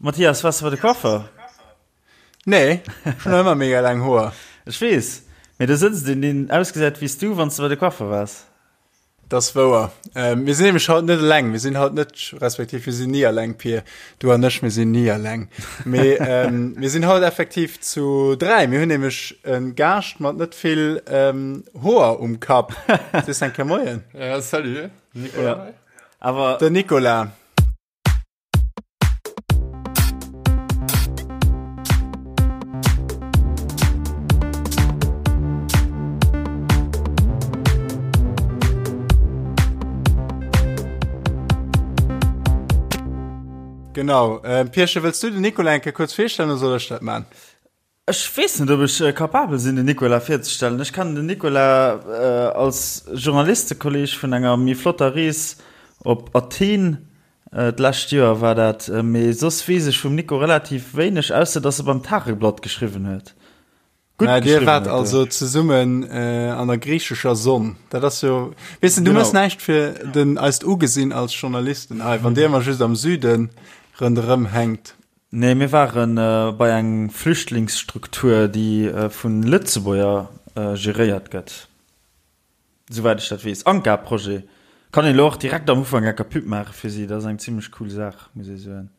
Mathias, waars de bei de Coiffeur? Nee, ech hunn nach ëmmer mega laang Hoer. Ech weess, mee do sëtzt een, deen ausgesäit wéi s du, wann s de bei de Coiffer waars. Dat ass wouer. Mir sinn nämlech haut net eleng. Mir sinn haut net, respektiv mir sinn ni eleng, Pir. Du an ech, mir sinn ni eleng. Mee mir sinn haut effektiv zu 3. Mir hunn nämlech e Gaascht mat net vill Hoer um Kapp. Sees eng Kéier Moien. Ja, salut, Nicolas. Awer. Den Nicolas. Genau. Ähm, Pierchen, wëlls du den Nicolas eng Kéier kuerz virstellen oder soll ech dat man? Ech weess net, ob ech capabel sinn, den Nicolas virzestellen. Ech kennen den Nicolas als Journalistekolleg vun enger méi flotter Rees op Athen, d'lescht Joer war dat. Mee soss weess ech vum Nico relativ wéineg, ausser dass e beim Tageblatt geschriwwen huet. Gutt geschriwwen huet. Dir waart also zesummen an der griichescher Sonn. Dat ass jo, weess de, du méchs näischt fir den eist Ugesinn als Journalisten hei, wann dir ëmmer just am Süde ronderëm hänkt. Nee, mir ware bei eng Flüchtlingsstruktur, déi vu Lëtzebuerger geréiert gëtt, souwäit ech dat weess. Anka-Projet. Kann een elo och direkt am Ufank enker Pub maache fir si. Dat ass eng zimmlech cool Saach, muss ee soen.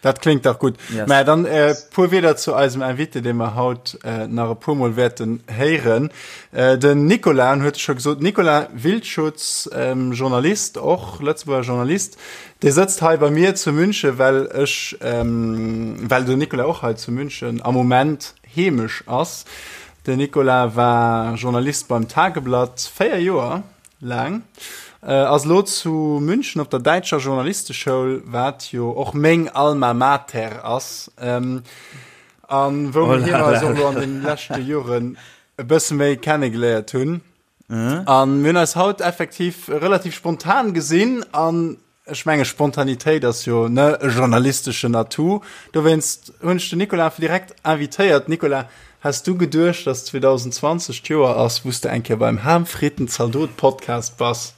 Dat kléngt dach gutt. Yes. Mä dann e puer Wierder zu eisem Invité, dee mer haut nach e puermol wäerten héieren. Den Nicolas huet scho gesot, Nicolas Wildschutz, Journalist, och Lëtzebuerger Journalist, Dee sëtzt hei bei mir zu München, well ech, well den Nicolas och hei zu München am Moment heemesch ass. Den Nicolas war Journalist beim Tageblatt 4 Joer laang, ass elo zu München op der däitscher Journalisteschoul, wat jo och meng Alma Mater ass, a wou mir eis och elo an den leschte Joren e bësse méi kennegeléiert hunn. An mir hunn eis haut effektiv relativ spontan gesinn an ech menge Spontanitéit ass jo ne e journalisteschen Atout. Dowéinst hunn ech den Nicolas direkt invitéiert. Nicolas, has du geduecht, dass 2020 d'Joer ass, wou s de eng Kéier beim Ham Fritten Zaldot Podcast bass?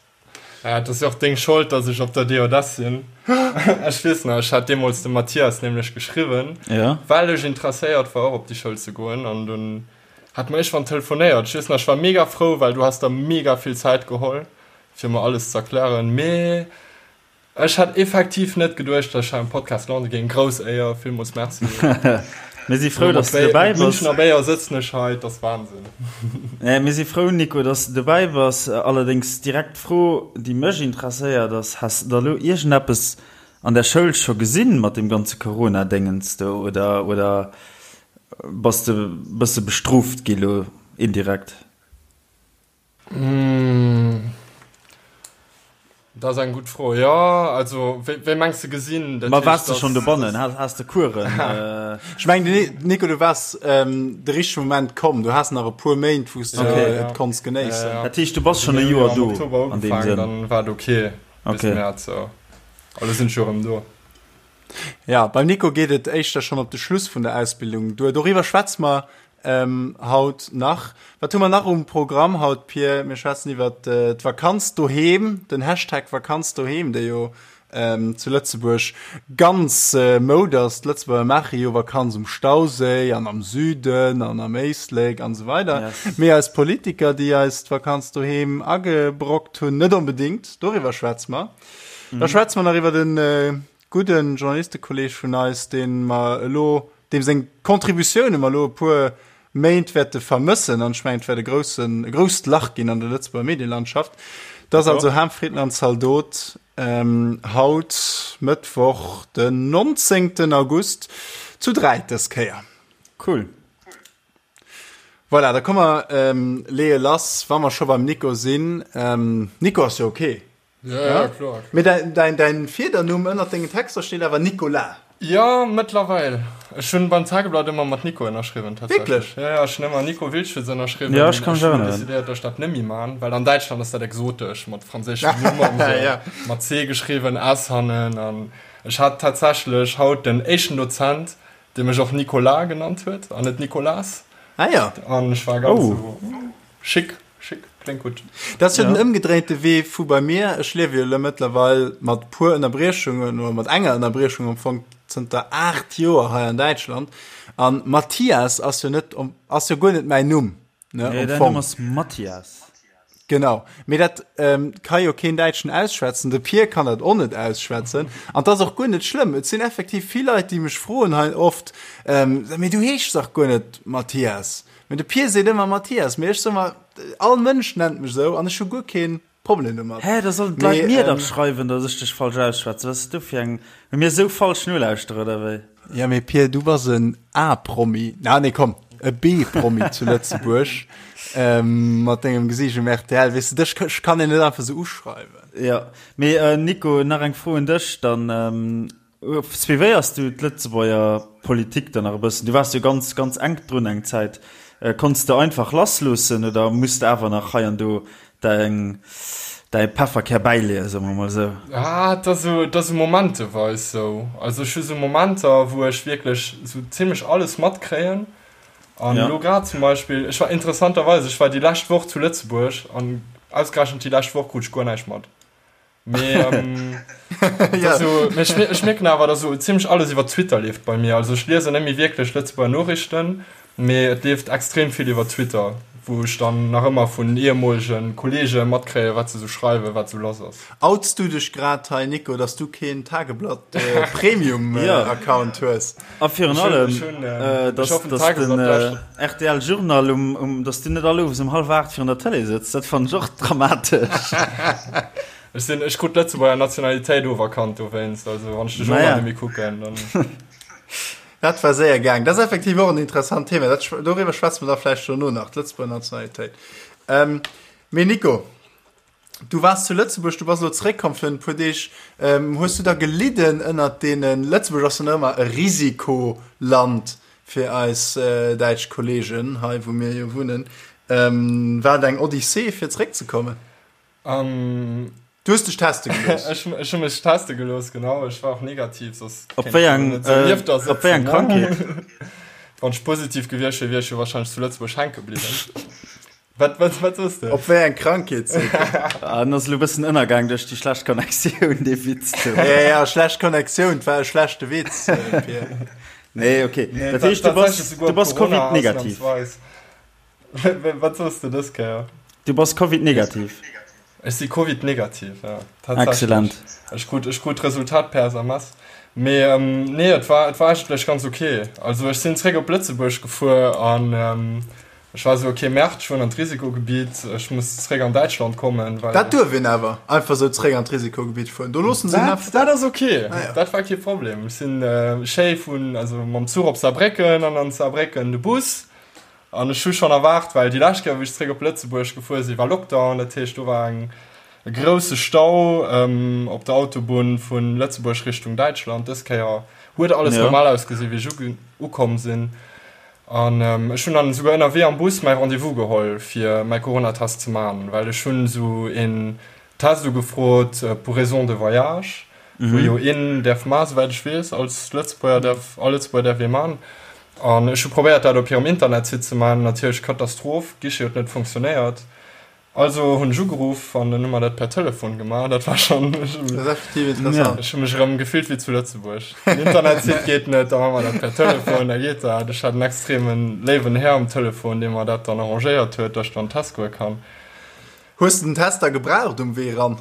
Ja, et ass jo och deng Schold, dass ech op der DJS sinn. Ech weess nach, ech hat deemools dem Mathias nämlech geschriwwen, well ech interesséiert war och op déi Schoul ze goen an dunn Hat mer iergendwann telefonéiert. Ech weess nach, ech war mega frou, well du has der mega vill Zäit geholl, fir mer alles ze erklären. Mee ech hat effektiv net geduecht, dass ech hei am Podcast lande géing. Grouss Éier, villmools Merci. Mir si frou, dass du dobäi bass. Münchener Béier sëtzen ech hei, et ass Wahnsinn. Mir si frou, Nico, dass du dobäi bass. Allerdéngs direkt d'Fro, déi mech interesséiert, ass, Has de da lo iergendeppes an der Schoul scho gesinn mat deem ganze Corona-Déngens do oder, oder Bass de bësse bestrooft gi lo indirekt? Dat ass eng gutt Fro. Jo, also wéi mengs de gesinn? Ma waars de schonn dobannen? Has de Coursen? Ech mengen, Nico, du waars de richtege Moment komm. Du has nach e puer Méint, wou s de et konns genéissen. Dat heescht, du bass schonn e Joer do an deem Sënn? Dann war et ok bis Mäerz. A lo sinn ech jo erëm do. Ja, beim Nico geet et éischter schonn op de Schluss vun der Ausbildung duer. Doriwwer schwätze mer haut nach. Wat hu mer nach um Programm haut, Pir? Mir schwätzen iwwer d'Vakanz doheem, den Hashtag Vakanz doheem, dee jo zu Lëtzebuerg ganz Moud ass. D'Lëtzebuerger maache jo Vakanz um Stauséi an am Süden an am Éislek an esou weider. Mee eis Politiker, déi eis d'Vakanz doheem agebrockt hunn, net onbedéngt. Doriwwer schwätze mer. Da schwätze mer nach iwwer den gudden Journalistekolleg vun eis, deen mer elo, deem seng Contributioune mer elo e puer Méint wäerte vermëssen, an ech mengen, et wäert e groussen, e grousst Lach ginn an der Lëtzebuerger Medielandschaft. Dat ass also Ham Fritten an Zaldot, haut, Mëttwoch, den 19. August, zu 3 dës Kéier. Cool. Voilà, da komme mer, leeë lass, wa mer scho beim Nico sinn. Nico ass jo ok. Ja, ja, kloer. Mee däin, däin, däin Fiedernumm ënnert dengen Texter steet awer Nicolas. Jo, mëttlerweil. Ech hunn beim Tageblatt ëmmer mat Nico ënnerschriwwen, tatsächlech. Wierklech? Ja, ja, ech hunn ëmmer Nico Wildschutz ënnerschriwwen. Ja, ech kann mech Ech hunn erënneren. decidéiert, dass ech dat net méi man, well an Däitschland ass dat exotesch, mat franséischem Numm an esou, Ja. mat C geschriwwen, S hannen. An ech hat tatsächlech haut den éischten Dozent, dee mech och Nicolas genannt huet an net Nicolas. Ah ja. An ech war ganz Oh. esou, Schick, schick. kléngt gutt. Dat ass jo den ëmgedréinte Wee vu bei mir. Ech liewe jo elo mëttlerweil mat puer Ënnerbriechungen oder mat enger Ënnerbriechung am Fong zënter 8 Joer hei an Däitschland. An Mathias ass jo net, ass jo guer net mäin Numm, ne, am Fong. Däin Numm ass Mathias. Genau, mee dat ka jo keen Däitschen ausschwätzen, de Pir kann dat och net ausschwätzen an 't ass och guer net schlëmm. Et sinn effektiv vill Leit, déi mech froen hei oft, Mee du heeschs dach guer net Mathias. Mee de Pir seet ëmmer Mathias, mee ech soe mer, all Mënsch nennt mech esou an ech hu guer kee Problem domat. Hä, da sollen d'Leit mir dach schreiwen, datt ech dech falsch ausschwätzen. Wat ass dat do fir eng, hu mir esou falsch nolauschterer oder wéi? Ja, mee Pir, du bass en A-Promi, na nee, komm, e B-Promi zu Lëtzebuerg, ähm, mat dengem Gesiicht um rtl, weess de, dech kann een net einfach sou uschreiwen. Ja, mee äh, Nico, nach eng Fro un dech dann. Ähm, suivéiers du d'Lëtzebuerger Politik dann nach e bëssen? Du waars jo ganz, ganz enk drun eng Zäit. Äh, konns de einfach lassloossen oder muss de awer nach hei an do Däin, däi Pefferkär bäileeën, soe mer mol esou. Ah, et ass esou, et ass esou momenteweis esou. Also ech hu sou Momenter, wou ech wierklech esou zimlech alles matkréien. An elo grad zum Beispill, ech war interessanterweis, ech war déi lescht Woch zu Lëtzebuerg an ausgerechent déi lescht Woch krut ech guer näischt mat. Mee, ähm, ja. so, mee ech, ech mierken awer, dass so ziemlech alles iwwer Twitter leeft bei mir. Also ech liesen net méi wierklech Lëtzebuerger Noriichten, mee et leeft extrem vill iwwer Twitter, wou ech dann nach ëmmer vun ehemolege Kollege matkréien, wat se sou schreiwen, wat sou lass ass. Outs du dech grad hei, Nico, dass du keen Tageblatt äh, Premium äh, ja. Account hues? A virun allem, äh, dass, dass den äh, RTL Journal um, um, dass du net all Owes um hallef 8 virun der Tëlee sëtz, dat fannen ech och dramatesch. Ech sinn, ech krut d'Lëtzebuerger Nationalitéit oferkannt dowéinst, also wann ech de Journal net méi kucken, dann. Dat war séier gaang. Dat ass effektiv och en interessant Thema. Dat, doriwwer schwätze mer da vläicht dono nach, d'Lëtzebuerger Nationalitéit. Ähm, mee Nico, Du waars zu Lëtzebuerg, du bass elo zeréckkomm virun e puer Deeg. Hues du da gelidden ënnert deenen, Lëtzebuerg ass jo nach ëmmer e Risikoland fir eis däitsch Kollegen hei wou mir jo wunnen, war et eng Odyssee fir zeréckzekommen? Du hues dech teste gelooss? Ech hu mech teste gelooss, genau. Ech war och negativ, soss kéint ech jo net esou nieft der sëtzen. Op wéi eng Krankheet? Wann ech positiv gewiescht wier, wier ech jo warscheinlech zu Lëtzebuerg hänke bliwwen. Wat, wat, wat soss de? Op wéi eng Krankheet seet en? Ah, en ass elo e bëssen ënnergaang duerch déi schlecht Connectioun, dee Witz do. Ja, ja, schlecht Connectioun, 't war e schlechte Witz, Pir. Nee, okay. Nee, dat heescht, du bass, du bass Covid-negativ. Wat soss de dës Kéier? Du bass Covid-negativ. Ech si Covid-negativ, ja. Excellent. Ech krut, ech krut d'Resultat per SMS. Mee, ähm, nee, et war, et war eigentlech ganz okay. Also ech sinn zréck op Lëtzebuerg gefuer an, ähm, Ech war esou, ok, Merde, ech fueren an d'Risikogebiet, ech muss zréck an Däitschland kommen, well. Dat duerf een awer, einfach esou zréck an d'Risikogebiet fueren, do loossen se een einfach. Dat ass ok, dat war kee Problem. Ech sinn schéi vun, also mam Zuch op Saarbrécken an an Saarbrécken de Bus. An ech hu schonn erwaart, well déi lescht Kéier, wou ech zréck op Lëtzebuerg gefuer sinn, war Lockdown, dat heescht, do war eng, e grousse Stau op der Autobunn vu Lëtzebuerg Richtung Däitschland. Dës Kéier huet alles normal ausgesinn, wéi ech ukomm sinn. An ech hunn dann esouguer ënnerwee am Bus mäi Rendez-vous geholl fir mäi Coronatest ze man, well ech hunn esou een Test ugefrot pour raison de voyage, wou jo een däerf man, souwäit ech weess, als Lëtzebuerger däerf, all Lëtzebuerger däerf ee man. An ech hu probéiert dat op hirem Internetsite ze man, natierlech Katastroph, Guichet huet net funktionéiert. Also hunn ech ugeruff an dann hu mer dat per Telefon gemaach. Dat war schonn, ech Dat ass effektiv interessant. ech hu mech erëm gefillt wéi zu Lëtzebuerg. Den Internetsite geet net, da maache mer dat per Telefon, da geet dat. Ech hat en extreme léiwen Här um Telefon, dee mer dat dann arrangéiert huet, datt ech dann Test goe kann. Hues de den Test da gebraucht um Wee eran?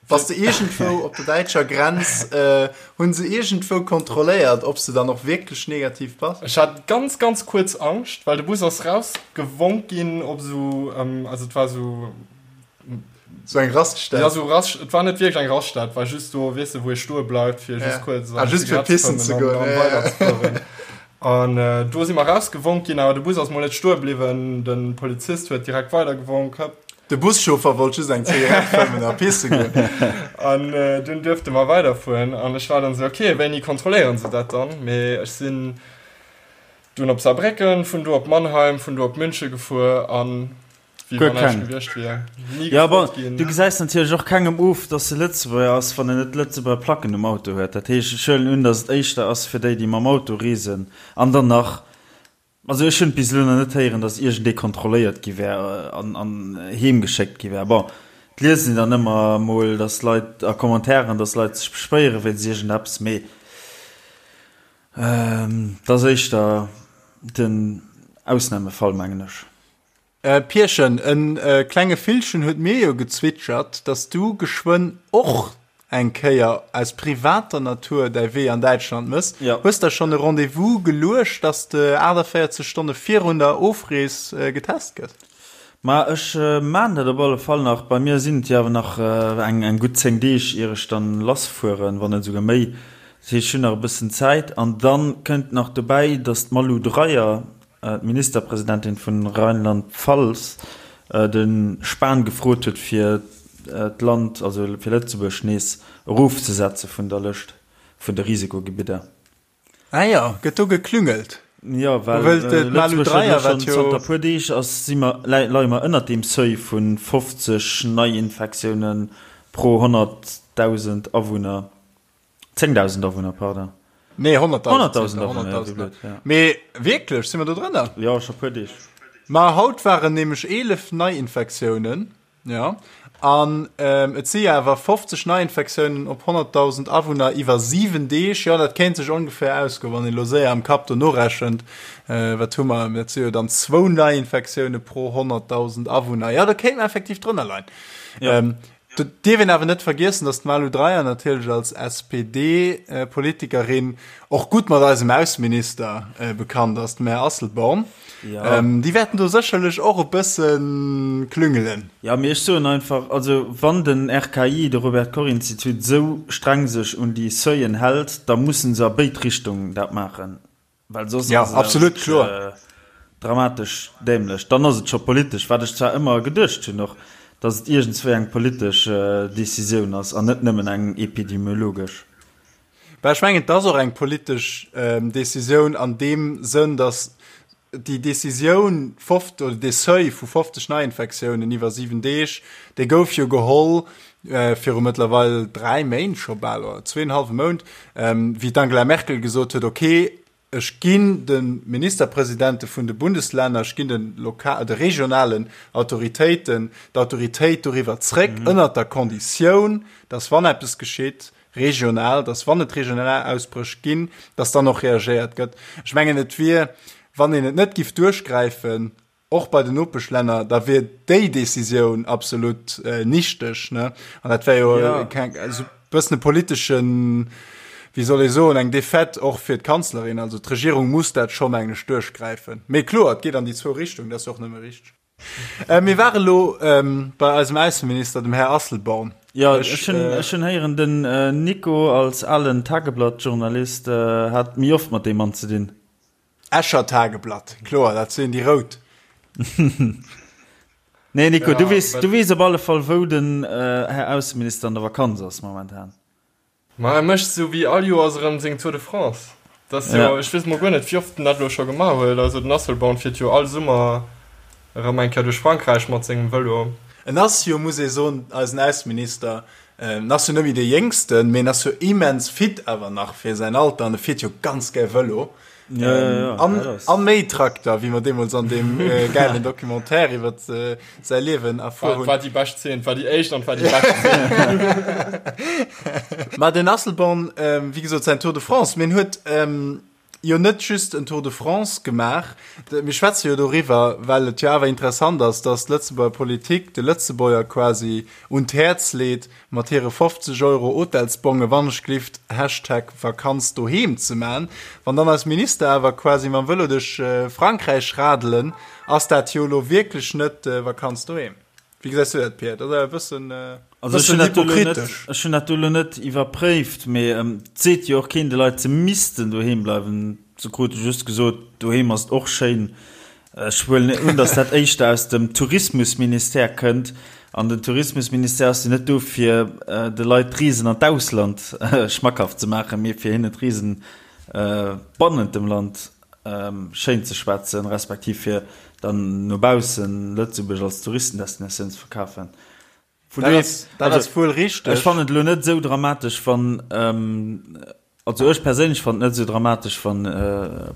Bass de iergendwou op der däitscher Grenz, hunn se iergendwou kontrolléiert, ob s de dann och wierklech negativ bass? Ech hat ganz, ganz kuerz Angscht, well de Bus ass rausgewonk ginn op esou, also et war esou. Esou eng Raststätt? Ja, esou Rast, et war net wierklech eng Raststätt, et war just do, weess de, wou ee stoe bleift, fir just kuerz eng Zigarett ze fëmmen an dann weiderzefueren. An do si mer rausgewonk ginn, awer de Bus ass mol net stoe bliwwen, de Polizist huet direkt weidergewonk, hëpp. De Buschauffer wollt just eng Zigarett fëmmen a pisse goen. An dunn duerfte mer weiderfueren an ech war dann esou, ok, wéini kontrolléieren se dat dann? Mee ech sinn dunn op Saarbrécken, vun do op Mannheim, vun do op München gefuer an wéi wann näischt gewiescht wier. Ni gefrot ginn. Jo, bon, du gesäis natierlech och kengem of, dass e Lëtzebuerger ass, wann en net Lëtzebuerger Placken um Auto huet. Dat heescht, ech huelen un, dass et éischter ass fir déi, déi mam Auto reesen an dann nach. Also ech hunn bis elo nach net héieren, datt iergendee kontrolléiert gi wär an an heem geschéckt gi wär. Bon, et liest een dann ëmmer emol, datt Leit a Commentairen, datt Leit sech beschwéiere wéinst iergendeppes, mee et ass éischter den Ausnamefall, mengen ech. Pierchen, en klenge Villchen huet mir jo gezwitschert, dass du geschwënn och eng Kéier aus privater Natur däi Wee an Däitschland mëss. Jo. Hues der schonn e Rendez-vous geluecht, dass de 48 Stonne virun der Ofrees getest gëss? Ma ech maan dat op alle Fall nach. Bei mir sinn et jo awer nach eng gutt 10 Deeg ier ech dann lassfueren, wann net esouguer méi. Dat heescht, ech hunn nach e bëssen Zäit. An dann kënnt nach dobäi, dass d'Malu Dreyer, d'Ministerpresidentin vun Rheinland-Pfalz, de Spahn gefrot huet fir d'Land, also fir Lëtzebuerg nees erofzesetze vun der Lëscht vun de Risikogebidder. Ah jo, gëtt do geklüngelt? Jo, well Lëtzebuerg huet elo schonn zanter e puer Deeg ass, si mer, leie mer ënnert deem Seuil vu 50 Neiinfektioune pro 100.000 Awunner. 10.000 Awunner, pardon. Nee, 100.000. 100.000 Awunner, ja, wéi blöd, ja. Mee wierklech, si mer do drënner? Jo, scho puer Deeg. Ma haut waren nämlech 11 Neiinfektiounen, jo, an et si awer 50 Neiinfektiounen op 100.000 Awunner iwwer 7 Deeg. Jo, dat kéint sech ongeféier ausgoen, wann een elo séier am Kapp do norechent. Wat hu mer? Dat si jo dann zwou Neiinfektioune pro 100.000 Awunner. Jo, do kéint mer effektiv drënner leien. Jo. Do dierf een awer net vergiessen, datt d'Malu Dreyer natierlech als SPD-Politikerin och gutt mat eisem Ausseminister bekannt ass, dem Här Asselborn. Déi wäerten do sécherlech och e bësse klüngelen. Jo, mee ech soen einfach, also wann den RKI, de Robert Koch Institut, esou streng sech un déi Seuillen hält, da musse se a béid Richtungen dat maachen. Well soss ja, ass et absolut kloer dramatesch dämlech. Dann ass et scho politesch, wat ech zwar ëmmer geduecht hunn och, datt et iergendswéi eng politesch Decisioun ass an net nëmmen eng epidemiologesch. Bah, ech mengen, et ass och eng politesch Decisioun an deem Sënn, datt déi Decisioun, oder dee Seuil vu 50 Neiinfektiounen iwwer 7 Deeg, dee gouf jo geholl viru mëttlerweil 3 Méint scho bal, oder zweenhalwe Mount, wéi d'Angela Merkel gesot huet, okay, ech ginn de Ministerpresidente vun de Bundeslänner, ech ginn de loka-, de regionalen Autoritéiten d'Autoritéit doriwwer zréck, ënnert der Konditioun, dass wann eppes geschitt, regional, dass wann et regional Ausbréch ginn, dass dann och reagéiert gëtt. Ech mengen, et wier, wann een et net giff duerchgräifen, och bei den Nopeschlänner, da wier déi Décisioun absolut nichteg, ne? An dat wär jo keng, esou e bëssen e politeschen, wéi soll ee soen, eng Défaite och fir d'Kanzlerin. Also d'Regierung muss dat scho, mengen ech, duerchgräifen. Mee kloer, et geet an déi zwou Richtungen, dat ass jo och nëmme richteg. Mir ware lo bei eisem Ausseminister, dem Här Asselborn. Jo, ech hunn héieren, den Nico als alen Tageblatt-Journalist hat méi oft mat deem Mann ze dinn. Escher Tageblatt, kloer, dat sinn déi rout. Nee Nico, du weess, du weess op alle Fall wou den Här Ausseminister an der Vakanz ass momentan. Ma e mécht sou wéi all Joers erëm seng Tour de France. Dat ass jo, ech weess mol guer net wéi oft en dat elo scho gemaach huet. Also den Asselborn fiert jo all Summer erëm eng Kéier duerch Frankräich mat sengem Vëlo. En ass jo, muss ee soen, eisen Ausseminister, en ass jo net méi dee Jéngsten, mee en ass jo immens fit awer nach fir säin Alter an e fiert jo ganz gär Vëlo. Ja, ja, ja, an, an méi Trakter, wéi mer deemools an deem äh, geilen Documentaire iwwer äh, säi Liewen erfuer hunn. War déi bescht Zeen, war déi éischt an war déi bescht Zeen. Ma den Asselborn, ähm, wéi gesot, säin Tour de France, mee en huet ähm, jo net just en Tour de France gemaach. Mir schwätze jo doriwwer, well et jo awer interessant ass, dass d'Lëtzebuerger Politik de Lëtzebuerger quasi un d'Häerz leet, mat hire 50 Euro Hotelsbonge wannechglift Hashtag Vakanz doheem ze man. Wann dann eis Minister awer quasi mam Vëlo duerch Frankräich radelen, ass dat jo elo wierklech net Vakanz doheem. Wéi gesäis du dat, Pierre? Dat ass awer e bëssen, Also ech bëssen hunn dat do elo net, hypokritesch. ech hunn dat do elo net iwwerpréift, mee et seet jo och keen de Leit, se missten doheem bleiwen. Se krute just gesot, doheem ass et och schéin. Ech huelen un, datt dat éischter aus dem Tourismusministère kënnt. An den Tourismusministère ass jo net do, fir de Leit d'Reesen an d'Ausland schmackhaft ze maachen, mee fir hinnen d'Reesen bannent dem Land schéin ze schwätzen, respektiv fir dann no baussen Lëtzebuerg als Touristendestinatioun ze verkafen. Vun Dat ass, dat ass wuel richteg. Ech fannen et elo net esou dramatesch, wann. Also ech perséinlech fannen et net esou dramatesch wann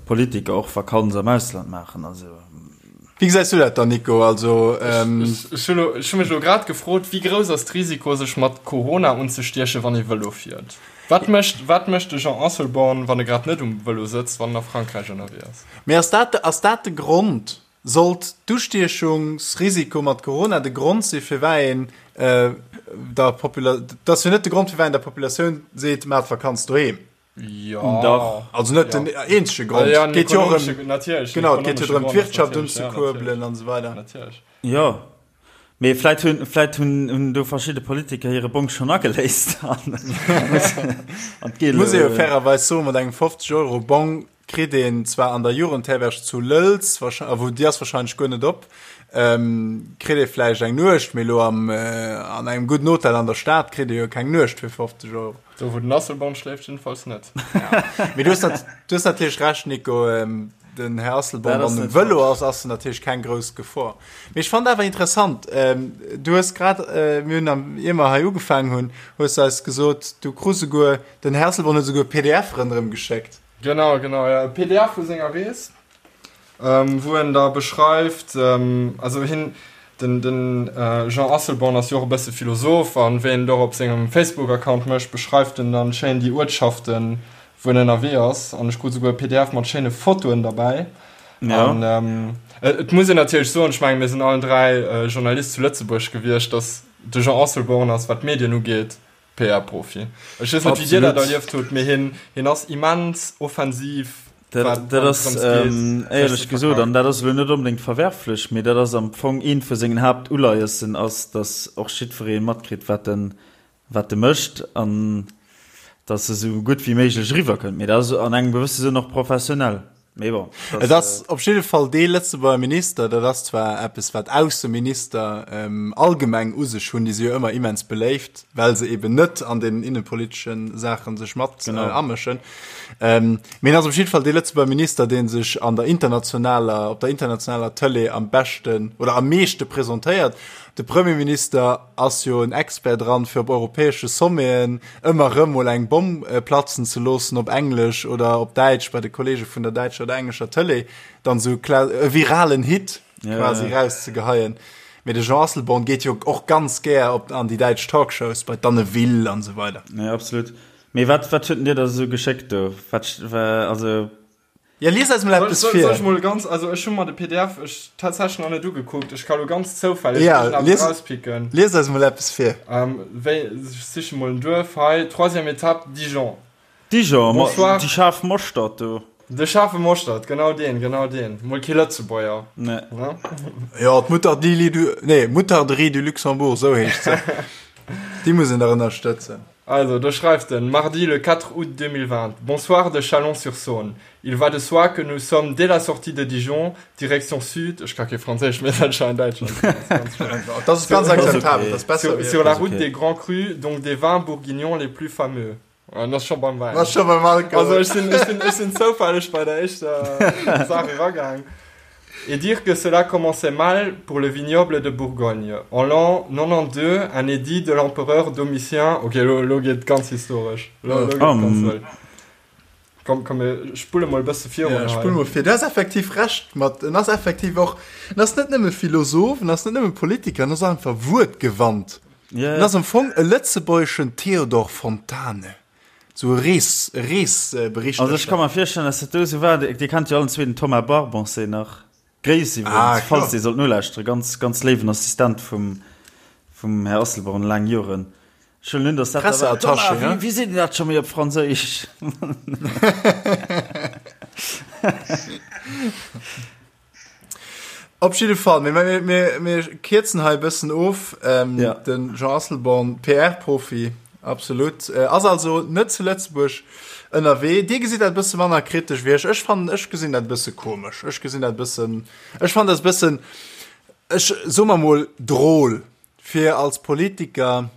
Politiker och Vakanz am Ausland maachen. Also. Wéi gesäis du dat dann Nico? Also. Ech hu mech elo grad gefrot, wéi grouss ass d'Risiko sech mat Corona unzestiechen, wann ee Vëlo fiert? Wat mécht wat mécht de Jean Asselborn, wann e grad net um Vëlo sëtzt, wann en a Frankräich ënnerwee ass? Mee ass dat ass dat de Grond? Sollt d'Ustiechungsrisiko mat Corona de Grond si firwat een der Popula dat ass jo net de Grond firwat een der Populatioun seet, maacht Vakanz doheem. Jo. Dach. Also net den eenzege Grond. Et geet jo och ëm, genau, et geet jo drëm d'Wirtschaft unzekuerbelen an esou weider. Natierlech. Jo. Mee vläit hunn, vläit hunn, hunn do verschidde Politiker hire Bong schonn ageléist an an d'Gel. Muss ee jo fairerweis soen, mat engem 50 Euro Bong kritt een zwar an der Jugendherberg zu Lëlz, a wou déi ass wahrscheinlech guer net op, kritt ee vläicht eng Nuecht, mee elo am an engem gudden Hotel an der Stad kritt ee jo keng Nuecht fir 50 Euro. Do wou den Asselborn schléift jiddefalls net. Mee du hues du hues natierlech Recht, Nico. Den Här Asselborn, wann en um Vëlo ass, ass en natierlech keng grouss Gefor. Mee ech fand awer interessant, du hues grad, mir hunn am, ier mer hei ugefaangen hunn, hues de eis gesot, du krus esouguer, den Här Asselborn huet esouguer e pdf ronderëm geschéckt. Genau, genau, jo, e pdf vu senger Rees, wou en da beschreift, also hien, den, den Jean Asselborn ass jo och e bësse Philosoph, an wéi en et och op sengem Facebook-Account mécht, beschreift en dann schéin déi Uertschaften, wou en ënnerwee ass an ech krut souguer e pdf mat schéine Fotoen derbäi. Ja. An ähm, et muss een natierlech soen, ech menge mir sinn allen 3 äh, Journalist zu Lëtzebuerg gewiescht, datt de Jean Asselborn ass, wat d'Medien ugeet, PR-Profi. Ech weess net, wéi Dir dat erlieft hutt, mee hien, hien ass immens offensiv, Dat, wat, dat ass ähm, éierlech gesot, an dat ass elo net onbedéngt verwerflech, mee dat ass am Fong eent vu sengen Haaptuleiessen ass, datt och jiddweree matkritt, wat en wat e mécht an dass e sou gutt wéi méiglech eriwwer kënnt. Mee dat ass an engem gewësse Sënn och professionell. Mee bon, Et ass op jidde Fall dee Lëtzebuerger Minister, dat ass zwar eppes, wat Ausseminister allgemeng u sech hunn, déi si jo ëmmer immens beléift, well se eben net an den innepolitesche Saache sech mat amëschen. Mee en ass op jidde Fall dee Lëtzebuerger Minister, dee sech an der internationaler, op der internationaler Tëlee am beschten oder am meeschte presentéiert. De Premierminister ass jo en Expert dran, fir op europäesche Sommeten ëmmer erëm mol eng Bomm platzen ze loossen, op Englesch oder op Däitsch, bei de Kollege vun der däitscher oder englescher Tëlee, dann esou e viralen Hit quasi erauszegeheien. Mee de Jean Asselborn geet jo och ganz gär op an déi däitsch Talkshows, bei d'Anne Will an esou weider. Jo, absolut. Mee wat, wat huet en dir da esou geschéckt do? Wat, also. Ja, lies eis mol eppes vir. Soll ech mol ganz, also ech hu mer de pdf ech tatsächlech nach net ugekuckt, ech ka lo ganz zoufälleg ja, lies, rauspicken. Lies eis mol eppes vir. Ähm, wéi, ech siche mol en Duerf hei, troisième étape, Dijon. Dijon, Bonsoir. Déi schaarf Moschtert do. De schaarfe Moschtert, genau deen, genau deen. Mol kee Lëtzebuerger. Nee. Ne? Ja, d'Moutarderie du, nee, Moutarderie du Luxembourg, sou heescht se. Déi muss een dach ënnerstëtzen. Also, do schreift en, Mardi le 4 août 2020, Bonsoir de Chalon-sur-Saône. Il va de soi que nous sommes dès la sortie de Dijon, direction sud, ech ka kee Franséisch, mee dat scheint Däitschland ze sinn, Das ass ganz akzeptabel, das ass besser wéi sur la route des grands crus, donc des vins bourguignons les plus fameux. An ass scho beim Wäin. Ass scho beim Alkohol. Also ech sinn, ech sinn, ech sinn zoufälleg bei der éischter Saach eragaang. Et dire que cela commençait mal pour le vignoble de Bourgogne. En l'an 92, un édit de l'empereur Domitien, ok, lo, lo geet et ganz historesch. Lo, lo geet et ganz wëll. Komm, komm, mir spulle mol e bësse virun Ja, hei. spull mol vir. Du has effektiv Recht mat, en ass effektiv och, en ass net nëmme Philosoph, en ass net nëmme Politiker, en ass och einfach wuertgewannt. Ja, En ass am Fong e lëtzebuergeschen Theodor Fontane. Sou e Rees, e Reesberichterstatter. Also ech ka mer virstellen, dass dat do esou war. Dir kennt jo allen zwee den Thomas Barboncet nach. Gréiss iwwregens, Ah, falls dee sollt nolauschteren. Ganz, ganz léiwen Assistent vum, vum Här Asselborn laang Joren. Ech huelen un, dass dat da war. Presseattaché, Thomas, wéi, wéi seet een dat scho méi op Franséisch? Op jidde Fall, mir, mir, mir, mir kierzen hei e bëssen of. Ähm, ja. Den Jean Asselborn, PR-Profi, absolut, äh, ass also net zu Lëtzebuerg ënnerwee. Dir gesitt dat e bësse manner kritesch wéi ech. Ech fannen, ech gesinn dat e bësse komesch. Ech gesinn dat e bëssen, ech fannen dat e bëssen, ech soe mer mol, drôle, fir als Politiker,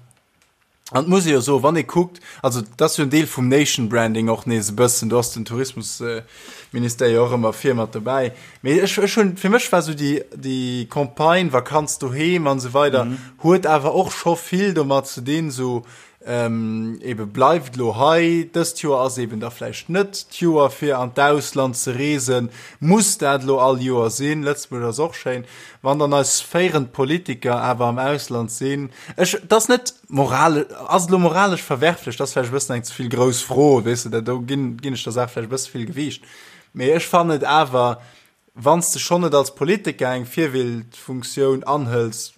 An et muss ee jo soen, wann ee kuckt, also dat ass jo en Deel vum Nation Branding och nees e bëssen, do ass den Tourismusministère jo och ëmmer vir mat dobäi. Mee ech, ech hunn, fir mech war esou déi, déi Campagne Vakanz doheem an esou weider, huet awer och scho vill domat ze dinn, esou. Ebe bleift elo hei, dëst Joer ass eben da vläicht net d'Joer fir an d'Ausland ze reesen. Muss dat elo all Joer sinn? Lëtzebuerg ass och schéin. Wann dann eis féierend Politiker awer am Ausland sinn, ech, et ass net moral, ass et elo moralesch verwerflech? Dat ass vläicht e bëssen eng ze vill grouss Fro, weess de, do ginn, ginn ech der Saach vläicht e bësse vill Gewiicht. Mee ech fannen et awer, wann s de schonn net als Politiker eng Virbildfunktioun anhëls,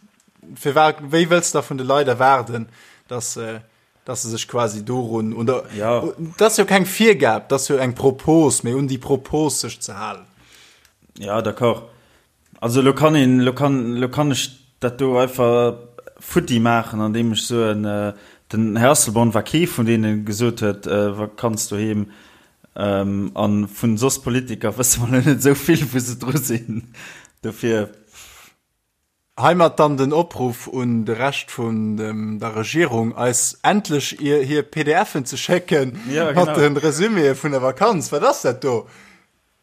firwat, wéi wëlls de da vun de Leit erwaarden, dass se, dass se sech quasi dorun, un der, ja. dat ass jo keng Virgab, dat ass jo eng Propos, mee un déi Propos sech ze halen. Ja, d'accord. Also elo kann een, elo kann, elo kann ech dat do einfach futti maachen, andeem ech soen, den Här Asselborn war kee vun deenen, gesot huet, Vakanz doheem, An vun soss Politiker wësse mer lo net esou vill wou se dru sinn. Dofir. Heimat dann den Opruff un de Rescht vun der Regierung, eis endlech hir PDFen ze schécken mat de Resüméë vun der Vakanz. Wat ass dat do?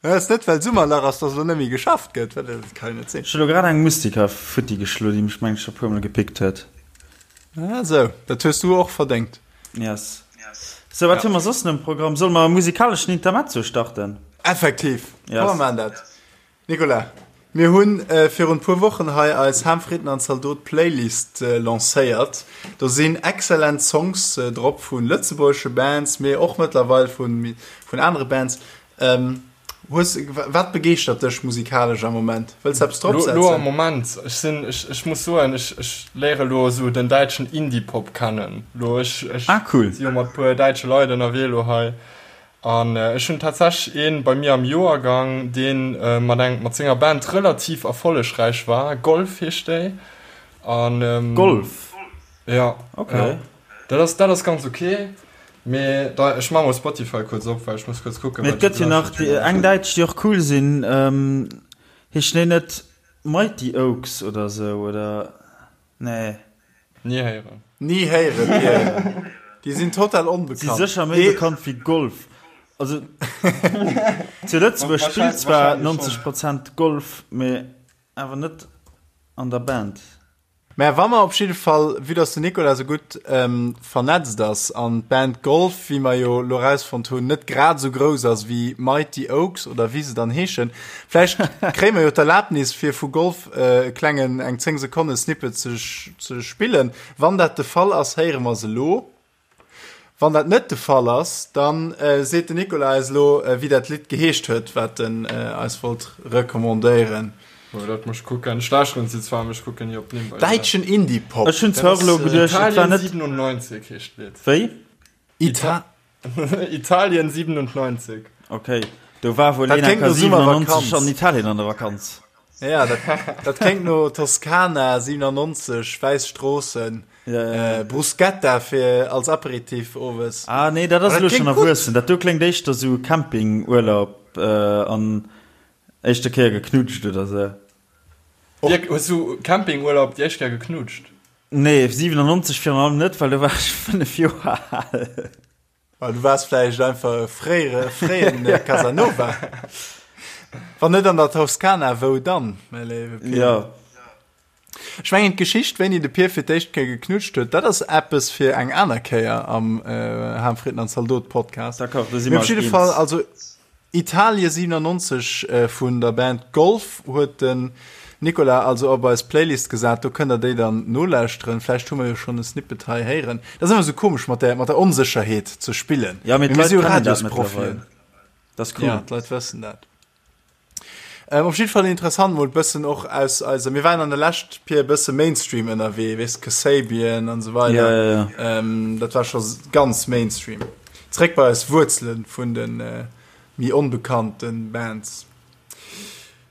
Et ass net well Summerlach ass, dass elo net méi geschafft gëtt. Dat kann jo net sinn. Ech hu lo grad eng Mustika futti geschlo, déi mech mengen ech scho puer mol gepickt huet. Ah sou, dat hues du och verdéngt. Yes. Sou, wat hu mer soss um Programm? Solle mer e musikaleschen Intermezzo starten? Effektiv, komm mer maachen dat. Nicolas, mir hunn virun puer Wochen hei eis Ham, Fritten an Zaldot Playlist lancéiert. Do sinn excellent Songs drop vu lëtzebuergesche Bands, mee och mëttlerweil vun anere Bands. Ähm, hues, wat begeeschtert dech musikalesch am Moment? Wëlls eppes drop setzen? Lo am Moment, ech sinn, ech, ech muss soen, ech, ech léiere lo esou den däitschen Indie-Pop kennen. Lo, ech, ech ah, cool. si jo mat puer däitsche Leit ënnerwee lo hei. An äh, ech hunn tatsächlech een bei mir am Joergang, deen äh, mat eng, mat senger Band relativ erfollegräich war. Golf heescht déi. An, ähm, Golf? Ja. Okay. Ja. Dat ass, dat ass ganz ok, mee da, ech maache mol Spotify kuerz op, well ech muss kuerz kucken, Mee et gëtt jo nach déi eng däitsch, déi och cool sinn, heeschen déi net Mighty Oaks oder esou, oder? Nee. Ni héieren. Ni héieren, ni héieren. Déi sinn total onbekannt. Si sécher méi bekannt wéi Golf. Also zu Lëtzebuerg spillt zwar 90 Prozent Golf, mee awer net an der Band. Mä wa mer op jidde Fall, vue dass den Nicolas esou gutt vernetzt ass an d'Band Golf, wéi mer jo elo erausfonnt hunn, net grad esou grouss ass wéi Mighty Oaks oder wéi se dann heeschen, vläicht kréie mer jo d'Erlaabnis fir vu Golf e klengen, eng 10 Sekonne Snippet ze spillen. Wann dat de Fall ass, héiere mer se elo. Wann dat net de Fall ass, dann seet den Nicolas eis elo, wéi dat Lidd geheescht huet, wat en eis wollt recommandéieren. Oh, dat muss ech kucken. Ech lauschteren se zwar, mee ech kucken ni op d'Nimm bei Däitschen Indie-Pop. Ech hunn zwar och elo geduecht, et war net. Italien 97 heescht d'Lidd. Wéi? Ita. Italien 97. Ok, do war wuel een enker 97 an Italien an der Vakanz. Ja, dat, dat kléngt no Toskana 97, wäiss Stroossen, ja, ja. Äh, Bruschetta fir als Aperitif owes. Ah nee, dat ass elo schon erwuessen. Dat do kléngt éischter sou Campingurlaub äh, an éischte Kéier geknutscht oder sou. Dirk, hues du Campingurlaub déi éischt Kéier geknutscht? Nee, 97 virun allem net, well do war ech 5 Joer al. Well du waars vläicht einfach e fréiere, fréien Casanova. Wann net an der Toskana, wou dann, mäi léiwe Pir? Ja. Ech mengen, d'Geschicht, wéini de Pir fir d'éischt Kéier geknutscht huet, dat ass eppes fir eng aner Kéier am Ham, Fritten an Zaldot Podcast. D'accord, do si mer eis eens. Mee op jidde Fall, also Italie 97 vun der Band Golf huet den Nicolas also op eis Playlist gesat. Do kënnt der déi dann nolauschteren. Vläicht hu mer jo schonn e Snippet hei héieren. Dat ass ëmmer esou komesch mat der mat der Onsécherheet ze spillen. Ja, mee d'Leit kennen dat mëttlerweil. Dat ass cool. Ja, d'Leit wëssen dat. Ähm, op jidde Fall interessant mol bëssen och aus eiser, mir waren an der Lescht Pier e bësse Mainstream ënnerwee, weess Kasabian an esou weider. Ja, ja, ja. Ähm, dat war scho ganz Mainstream. Zréck bei eis Wuerzelen vun den méi onbekannten Bands.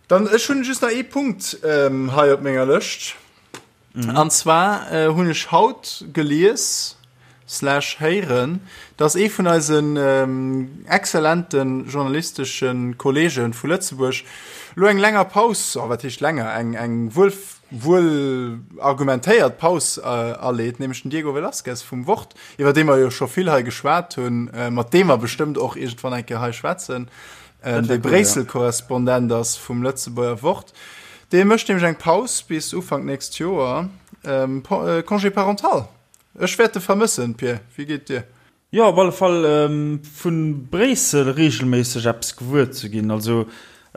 Dann ech hunn just nach ee Punkt hei op menger Lëscht. An zwar hunn ech haut gelies slash héieren, dass ee vun eisen exzellente journalistesche Kollege vu Lëtzebuerg elo eng länger Paus, oh wat heescht länger, eng eng wuel wuel argumentéiert Paus aleet, nämlech den Diego Velazquez vum Wort. iwwer dee mer jo scho vill hei geschwat hunn, mat deem mer bestëmmt och iergendwann eng Kéier hei schwätzen, dee Bréissel-Korrespondent ass vum Lëtzebuerger Wort. Dee mécht nämlech eng Paus bis Ufank nächst Joer, Congé parental. Ech wäert e vermëssen, Pir. Wéi geet dir? Jo, op alle Fall vu Bréissel reegelméisseg eppes gewuer ze ginn. Also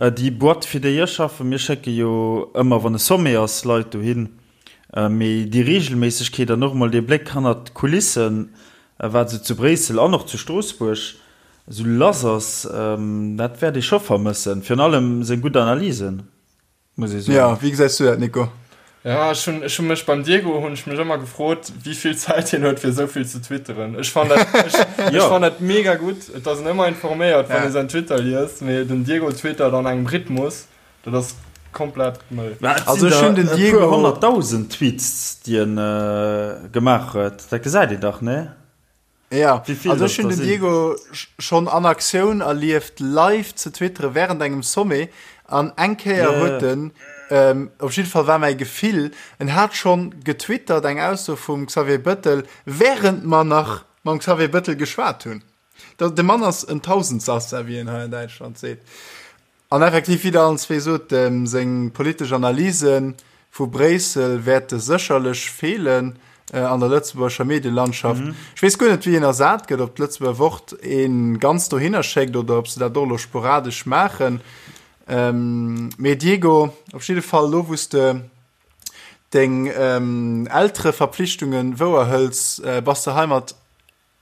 déi Boîte, fir déi ech schaffen, mir schécke jo ëmmer, wann e Sommet ass, Leit dohin. Mee déi Reegelméissegkeet an och emol dee Bléck hannert d'Kulissen, wat esou zu Bréissel an och zu Stroossbuerg esou lass ass, dat wäert ee scho vermëssen. Virun allem seng gutt Analysen. Muss ee soen. Ja, wéi gesäis du dat, Nico? Ja, ech hunn, ech hunn mech beim Diego hunn ech mech ëmmer gefrot, wéi vill Zäit hien huet fir esou vill ze twitteren. Ech fann dat, ech, ech fann dat mega gutt. Et ass en ëmmer informéiert, wann ee säin Twitter liest, mee den Diego twittert an engem Rhythmus, dat ass komplett mëll. Mä et sinn der e puer honnertdausend Tweets, déi en gemaach huet. Dat gesäit een dach, nee? Ja, also ech hunn den Diego schonn an Aktioun erlieft, live ze twitteren während engem Sommet an eng Kéier huet en, op jidde Fall war mäi Gefill, en hat schonn getwittert eng Ausso vum Xavier Bëttel, während mer nach mam Xavier Bëttel geschwat hunn. De Mann ass en Tausendsassa, wéi een hei an Däitschland seet. An effektiv, wéi Der allen zwee sot, seng politesch Analyse vu Bréissel wäerte sécherlech feelen an der lëtzebuergescher Medielandschaft. Ech weess guer net, wéi en ersat gëtt, ob d'Lëtzebuerger Wort ee ganz dohinner schéckt oder ob se dat och elo sporadesch maachen. Mee Diego, op jidde Fall, elo wou s de deng Eltereverpflichtungen wouerhëls, bass de heimat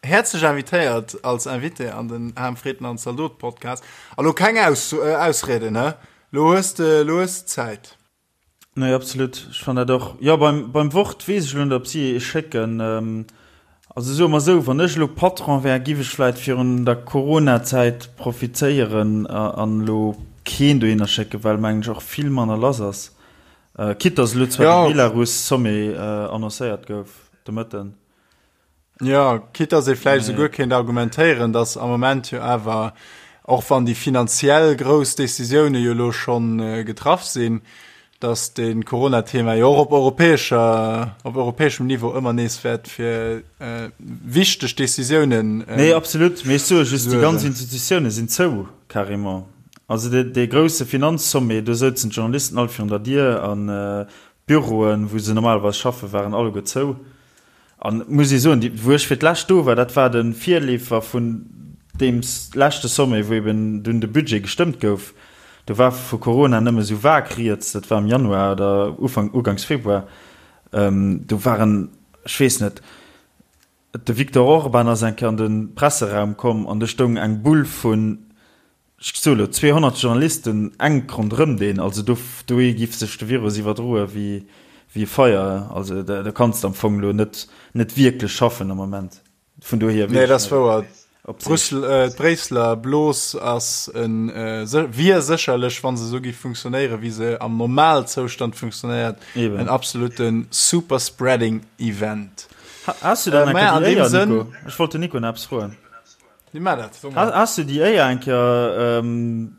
Häerzlech invitéiert als Invité an den Ham Fritten an Zaldot Podcast. A lo keng Aus Ausrieden, hä? Lo hues de, lo hues de Zäit. Nee, absolut. Ech fannen dat och. Jo, beim, beim Wort weess ech elo net, ob si ee schécken. Also soe mer esou, wann ech elo Patron wär, giff ech vläit virun der Corona-Zäit profitéieren an elo keen dohinner schécken, well mengen ech och vill manner lass ass. Quitte dass elo zwar de Belarus-Sommet annoncéiert gouf de Mëtten. Jo, quitte dass ee vläicht esouguer kéint argumentéieren, dass am Moment jo awer, och wann déi finanziell grouss Décisioune jo elo scho getraff sinn, dass de Corona-Thema jo och op europäescher, op europäeschem Niveau ëmmer nees wäert fir wichteg Décisiounen Nee, absolut. Mee ech soe just, déi ganz Institutioune sinn zou, carrément. Also dee grousse Finanzsommet, do souzen d'Journalisten all virun der Dier an d'Büroen, wou se normalerweis schaffen, waren alleguer zou. An et muss ee soen, déi, wou ech fir d'lescht do war, dat war de Virleefer vun deem leschte Sommet, wou eben dunn de Budget gestëmmt gouf. Do war vu Corona nëmme sou vag rieds, dat war am Januar oder Ufank, uganks Februar. Do waren, ech weess net, de Viktor Orban ass eng Kéier an de Presseraum komm an do stoung eng Bull vun, Ech soe lo, 200 Journalisten enk ronderëm deen, also do dohi giff sech de Virus iwwerdroe wéi wéi e Feier. Also da kanns de am Fong lo net net wierklech schaffen am Moment. Vun dohier Nee, dat ass wouer. Brüssel, d'Bréisseler Blos ass en wier sécherlech, wa se esou giff funktionéieren, wéi se am Normalzoustand funktionéiert, en absolute Superspreading Event. Has du dann eng Kéier déi Éier, Nico? Ech wollt den Nico nach eppes froen. Wie maat dat? Has du déi Éier eng Kéier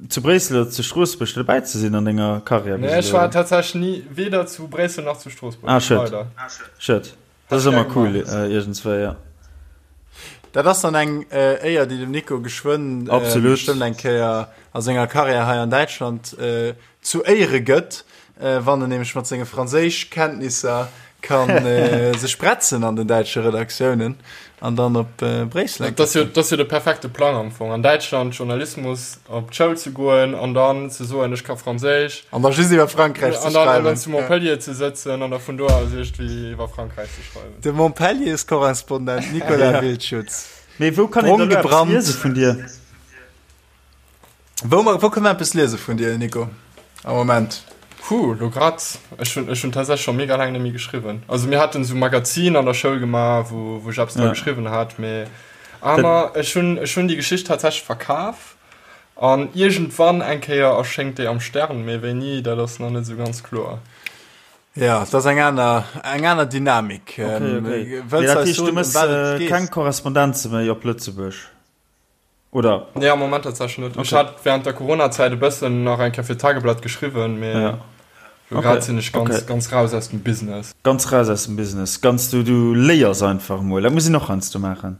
zu Bréissel oder zu Stroossbuerg dobäi ze sinn an denger Karriär bis elo? Nee, ech war tatsächlech ni, weder zu Bréissel nach zu Stroossbuerg. Ah, schued. Schued. Dat ass ëmmer cool iergendswéi, jo. Dat ass dann eng Éier, déi dem Nico geschwënn bestëmmt eng Kéier a senger Karriär hei an Däitschland zu Éiere gëtt, wann en nämlech mat senge Franséischkenntnisser ka sech bretzen an den däitsche Redaktiounen an dann op Bréissel Dat ass jo, dat ass jo de perfekte Plang am Fong, an Däitschland Journalismus op d'Schoul ze goen an dann ze soen, ech ka Franséisch. An da just iwwer Frankräich ze schreiwen. An dann zu Montpellier ze sëtzen an da vun do aus iergendwéi iwwer Frankräich ze schreiwen. De Montpelliers-Korrespondent Nicolas Wildschutz. Mee wou kann een da elo eppes liese vun dir? Wou, wou kënne mer eppes liese vun dir, Nico, am Moment? Puh, lo grad, ech hunn, ech hunn tatsächlech scho mega laang net méi geschriwwen. Also mir haten esou Magazin an der Schoul gemaach, wou, wou ech eppes dra geschriwwen hat, mee aner, ech hunn, ech hunn déi Geschicht tatsächlech verkaf an iergendwann eng Kéier erschéngt déi am Stern, mee wéini, dat ass nach net esou ganz kloer. Ja, dat ass eng aner, eng aner Dynamik. Okay, okay. Wëlls du eis soen, ëm wat et geet? Keng Korrespondenze méi op Lëtzebuerg? Oder? Nee, am Moment tatsächlech net. Ech hat während der Corona-Zäit e bëssen nach eng Kéier fir d'Tageblatt geschriwwen, mee Ja. lo grad sinn ech ganz, ganz raus aus dem Business. Ganz raus aus dem Business. Ganz, du, du léiers einfach emol. Dat muss een och heiansdo maachen.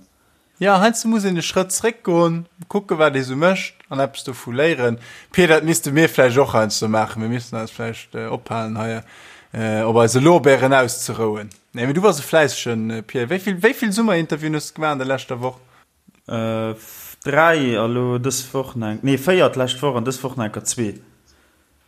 Ja, heiansdo muss een e Schrëtt zréckgoen, kucken, wat ee sou mécht an eppes dovu léieren. Pir, dat misste mir vläicht och heiansdo maachen. Mir missten eis vläicht ophalen, hei op eise Lorbeeren auszerouen. Nee, mee du bass e fläissegen Pierre. Wéi vill, wéi vill Summerinterviewen hues de gemaach an der leschter Woch? 3 a lo dës Woch nach eng, nee 4 d'lescht Woch an dës Woch nach enker zwee.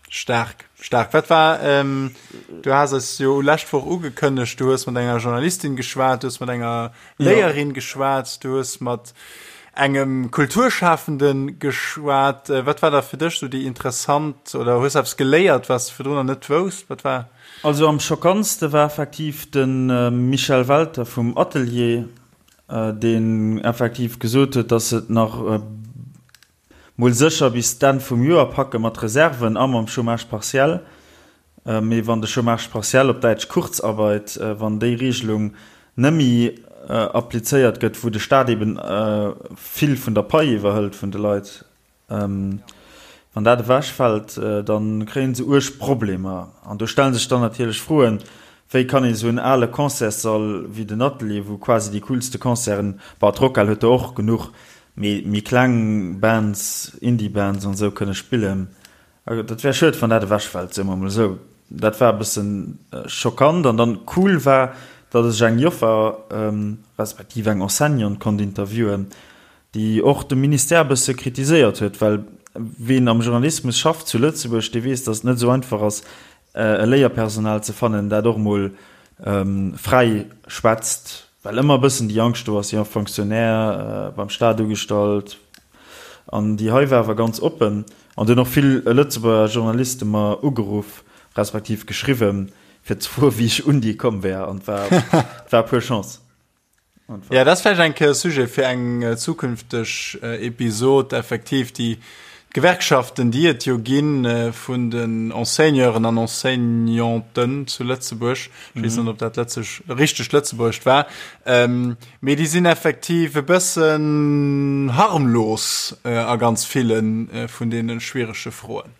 Staark, staark. Wat war, du has eis jo lescht Woch ugekënnegt, du hues mat enger Journalistin geschwat, du hues mat enger Léierin geschwat, du hues mat engem Kulturschafende geschwat. Wat war da fir dech sou déi interessant, oder hues eppes geléiert, wat s de virdrun nach net wousst? Wat war? Also am schockantste war effektiv de Michel Welter vum Atelier, deen effektiv gesot huet, datt se et nach mol sécher bis d'Enn vum Joer packe mat Reserven a mam Chômage partiel. Mee wann de Chômage partiel, op Däitsch Kurzarbeit, wann déi Regelung nëmmi applizéiert gëtt, wou de Staat eben vill vun der Pai iwwerhëlt vun de Leit, Wann dat ewechfält, da kréie se uerg Problemer. An do stelle sech dann natierlech Froen, Wéi kann een esou en ale Concertssall wéi den Atelier, wou quasi déi coolste Concerten, bon, d'Rockhal huet der och genuch, mee méi kleng Bands, Indie-Bands an esou kënne spillen? Dat wär schued, wann dat ewechfält, soe mer emol esou. Dat war e bësse schockant. An dann cool war, datt ech eng Joffer, respektiv eng Enseignante konnt interviewen, déi och de Ministère e bësse kritiséiert huet, well ween am Journalismus schafft zu Lëtzebuerg, dee weess, datt et net esou einfach ass, e Léierpersonal ze fannen, dat och emol fräi schwätzt, well ëmmer e bëssen déi Angscht do ass, jo, Fonctionnaire, beim Staat ugestallt. An déi hei war awer ganz oppen an et hunn och vill Lëtzebuerger Journaliste mer ugeruff, respektiv geschriwwen, fir ze froen, wéi ech un déi komm wär, an et war, et war pur Chance. Ja, dat ass vläicht eng Kéier Sujet fir eng zukünfteg Episod, effektiv déi Gewerkschaften, déi et jo gi vun den Enseigneuren an Enseignanten zu Lëtzebuerg. Ech weess net, ob dat lëtzeg, richtegt Lëtzebuergescht war. Mee déi sinn effektiv e bëssen harmlos a ganz ville vun deene schwierege Froen.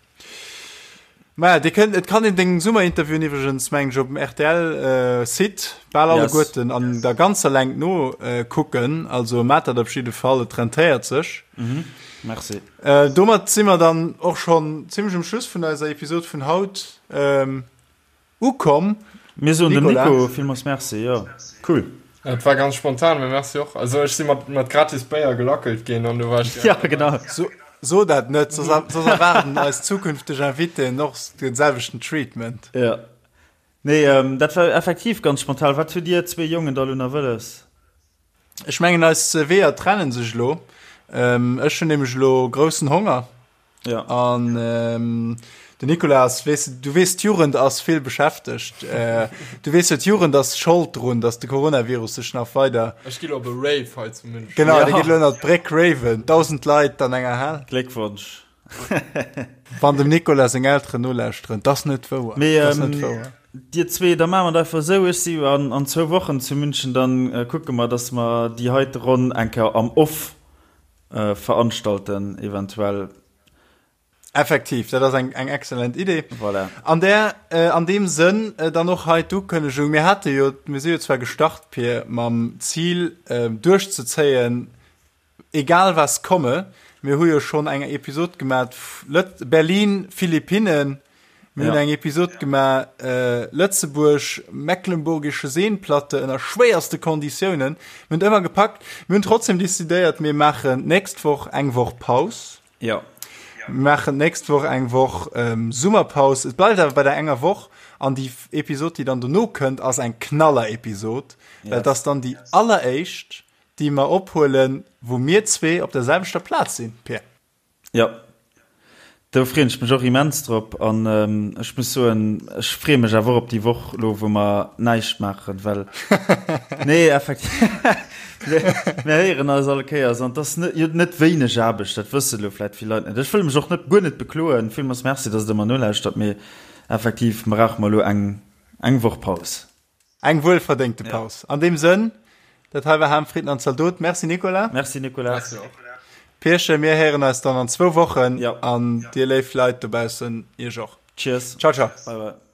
Maja, dir kënnt, et kann een deng Summerinterviewen iwwregens, mengen ech, op dem RTL-Site bal alleguerten yes. an der ganzer Längt no äh, kucken. Also mat dat op jidde Fall, et rentéiert sech. Mhm. Merci. Äh, domat si mer dann och schon zimmlech um Schluss vun eiser Episod vun haut. Ähm, Ukomm. Mir soen dem Nico villmools Merci, jo cool. Et war ganz spontan, mee merci och. Also ech si mat mat gratis Béier gelackelt ginn an du war ech Ja genau. So, so dat net, soss soss erwaarden eis zukünfteg Invitéen och den selwechten Treatment. Ja. Nee, ähm, dat war effektiv ganz spontan. Wat hutt Dir zwee Jongen da lo nach wëlles? Ech mengen eis Weeër trennen sech elo. Ähm, ech hunn nämlech elo groussen Honger. Ja. An ähm, den Nicolas, weess de, du weess, d'Jugend ass vill beschäftegt. Äh, du weess jo, d'Jugend ass Schold drun, dass de Coronavirus sech nach weider. Ech gi lo op e Rave hei zu München. Genau, ja. de geet lo ënner d'Bréck raven. 1000 Leit an enger Hal. Gléckwonsch. Wann dem Nicolas seng Elteren nolauschteren, dat ass net wouer. Mee, ähm, net wouer. Dir zwee, da maache mer et einfach esou, ech si an, an zwou Wochen zu München, dann äh, kucke mer, dass mer déi heite Ronn eng Kéier am Off äh, veranstalten, eventuell. Effektiv, dat ass eng, eng excellent Idee. Voilà. An der, äh, an deem Sënn äh, dann och hei d'Ukënnegung. Mir hate jo, mir si jo zwar gestart, Pir, mam Zil äh, duerchzezéien, Egal was komme, mir hu jo schonn eng Episod gemat Lët Berlin, Philippinen, mir hunn eng Episod gemaach Lëtzebuerg, Mecklenburgische Seenplatte ënner schwéierste Konditiounen. Mir hunn et ëmmer gepackt. Mir hunn trotzdem decidéiert, mir maachen d'nächst Woch eng Woch Paus. Jo. Mir maachen d'nächst Woch eng Woch Summerpaus. Et bleift awer bei der enger Woch an déi Episod, déi dann dono kënnt, ass eng Knaller-Episod, well et ass dann déi alleréischt Déi mer ophuelen, wou mir zwee op der selwechter Plaz sinn, Pir. Jo, do freeën ech mech och immens drop. An ech muss soen, ech freeë mech awer och op déi Woch elo, wou mer näischt maachen, well, nee, effektiv, mir héieren eis all Kéiers an et ass net, jo, net wéineg Aarbecht, dat wësse elo vläicht vill Leit net. Ech wëll mech och net, guer net bekloen. Villmools Merci, dass Der mer nolauschtert, mee effektiv brauche mer elo eng, eng Woch Paus. Eng wuelverdéngte Paus. An deem Sënn, dat hei war Ham, Fritten an Zaldot. Merci Nicolas. Merci Nicolas. Merci och. Pierchen, mir héieren eis dann an zwou Wochen. Jo. An dir léif Leit dobaussen, iech och. Cheers. Ciao, ciao. Bye, bye.